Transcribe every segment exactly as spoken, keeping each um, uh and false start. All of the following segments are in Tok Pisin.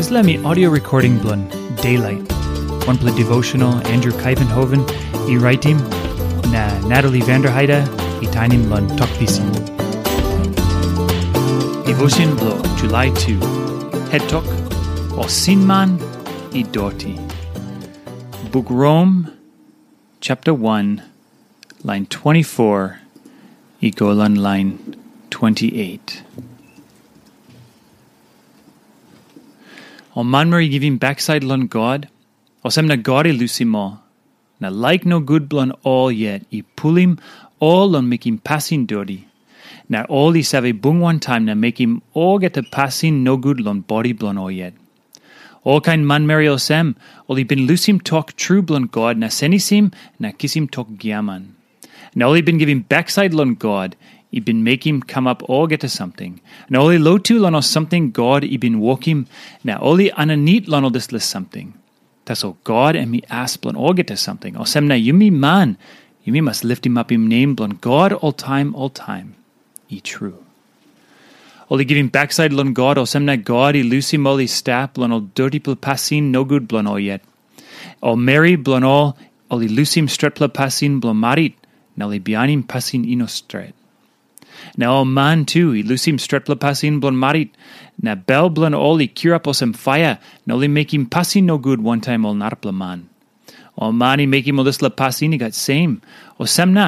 Dispela mi audio recording bilong Daylight, wanpela devotional Andrew Kaivenhoven i raitim, na Natalie Vanderheide i tainim long Tok Pisin. Devotion bilong July two. Het tok, o sinman i doti. Buk Rom, chapter one, lain twenty-four, i go long lain twenty-eight. Ol manmeri i givim baksait long God, olsem na God i lusim ol. Na laik nogut bilong ol yet i pulim ol long mekim pasin doti. Na ol i save bung wantaim na mekim olgeta pasin nogut long bodi bilong ol yet. Olkain manmeri olsem, ol i bin lusim tok tru bilong God na senisim na kisim tok giaman. Na ol i bin givim baksait long God, i bin mekim kamap olgeta samting. Na ol i lotu long ol samting God i bin wokim, na ol i aninit long ol dispela samting. Tasol God em i as bilong olgeta samting. Olsem na yumi man, yumi mas litimapim nem bilong God oltaim oltaim. I tru. Ol i givim baksait long God, olsem na God i lusim ol i stap long ol dotipela pasin nogut bilong ol yet. Ol meri bilong ol, ol i lusim stretpela pasin bilong marit, na ol i bihainim pasin i no stret. Na ol man tu i lusim stretpela pasin bilong marit, na bel bilong ol i kirap olsem paia, na ol i mekim pasin nogut wantaim ol narapela man. Ol man i mekim ol dispela pasin i gat sem, olsem na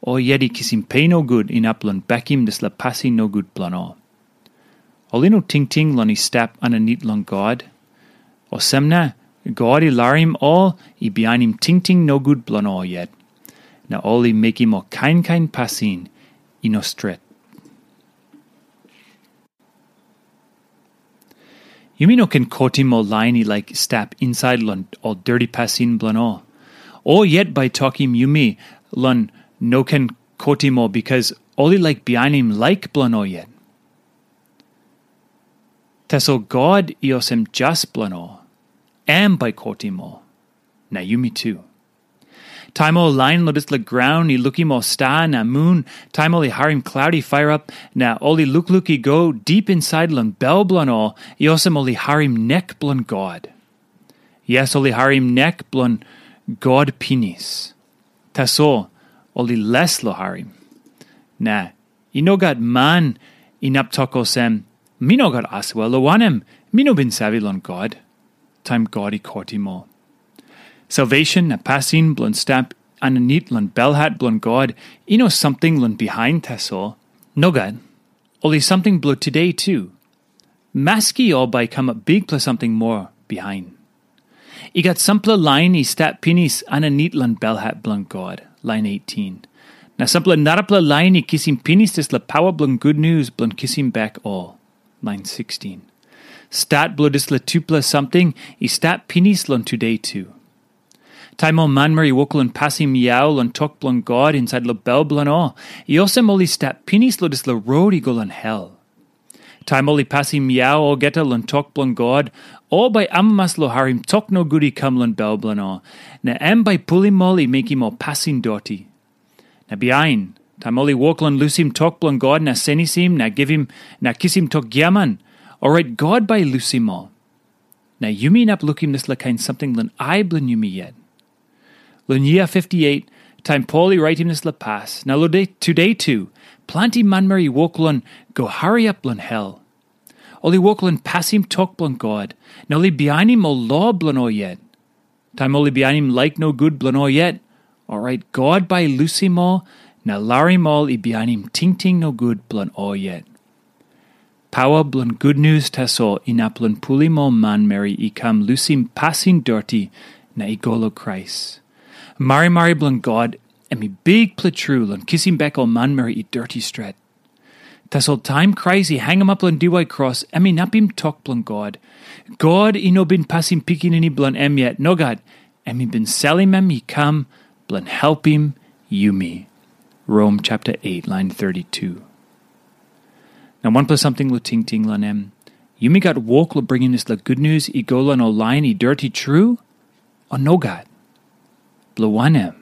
ol yet i kisim pe nogut inap long bekim dispela pasin nogut bilong ol. Ol i no tingting long i stap aninit long God. Olsem na God i larim ol i bihainim tingting nogut bilong ol yet, na ol i mekim ol kain kain pasin i no stret. Yumi no ken kotim ol lain i laik stap insait long ol doti pasin bilong ol. O yet bai tokim yumi long no ken kotim ol, bikas ol i laik bihainim laik bilong ol yet. Tasol God i olsem jas bilong ol, em bai kotim ol, na yumi tu. Taim ol lain long dispela graun i lukim ol sta na mun, taim ol i harim klaut i pairap, na ol i lukluk i go dip insait long bel bilong ol, i olsem ol i harim nek bilong God. Yes, ol i harim nek bilong God pinis. Tasol ol i les long harim. Na i no gat man inap tok olsem, "Mi no gat asua, long wanem, mi no bin save long God," taim God i kotim ol. Salvation na pasin bilong stap aninit long belhat bilong God i no samting long bihain tasol. Nogat. Ol i samting bilong tude tu. Maski ol bai i kamap bikpela samting moa bihain. I gat sampela lain i stap pinis aninit long belhat bilong God, lain eighteen. Na sampela narapela lain i kisim pinis dispela pawa bilong gutnius bilong kisim bek ol, lain sixteen. Stat bilong dispela tupela samting i stap pinis long tude tu. Taim ol manmeri i wok long pasim yau long tok bilong God insait long bel bilong ol, i olsem ol i stap pinis long dispela rot i go long hel. Taim ol i pasim yau olgeta long tok bilong God, ol bai amamas long harim tok nogut i kam long bel bilong ol, na em bai pulim ol i mekim ol pasin doti. Na bihain, taim ol i wok long lusim tok bilong God na senisim na givim na kisim tok giaman, orait God bai i lusim ol. Na yumi inap lukim dispela kain samting long ai bilong yumi yet. Long yia fifty-eight, taim Pol i raitim dispela pas, na long de tude tu, planti manmeri i wok long go hariap long hel. Ol i wok long pasim tok bilong God, na ol i bihainim ol lo bilong ol yet. Taim ol i bihainim laik nogut bilong ol yet, orait God bai i lusim ol na larim ol i bihainim tingting nogut bilong ol yet. Pawa bilong gutnius tasol inap long pulim ol manmeri i kam lusim pasin doti na i go long Krais. Marimari bilong God em i bikpela tru long kisim bek ol manmeri i doti stret. Tasol taim Krais i hangamap long diwai kros, em inapim tok bilong God. God i no bin pasim pikinini bilong em yet, nogat, em i bin salim em i kam bilong helpim yumi. Rom chapter eight, lain thirty-two. Na wanpela samting long tingting long em, yumi gat wok long bringim dispela gutnius i go long ol lain i doti tru, o nogat? Bilong wanem?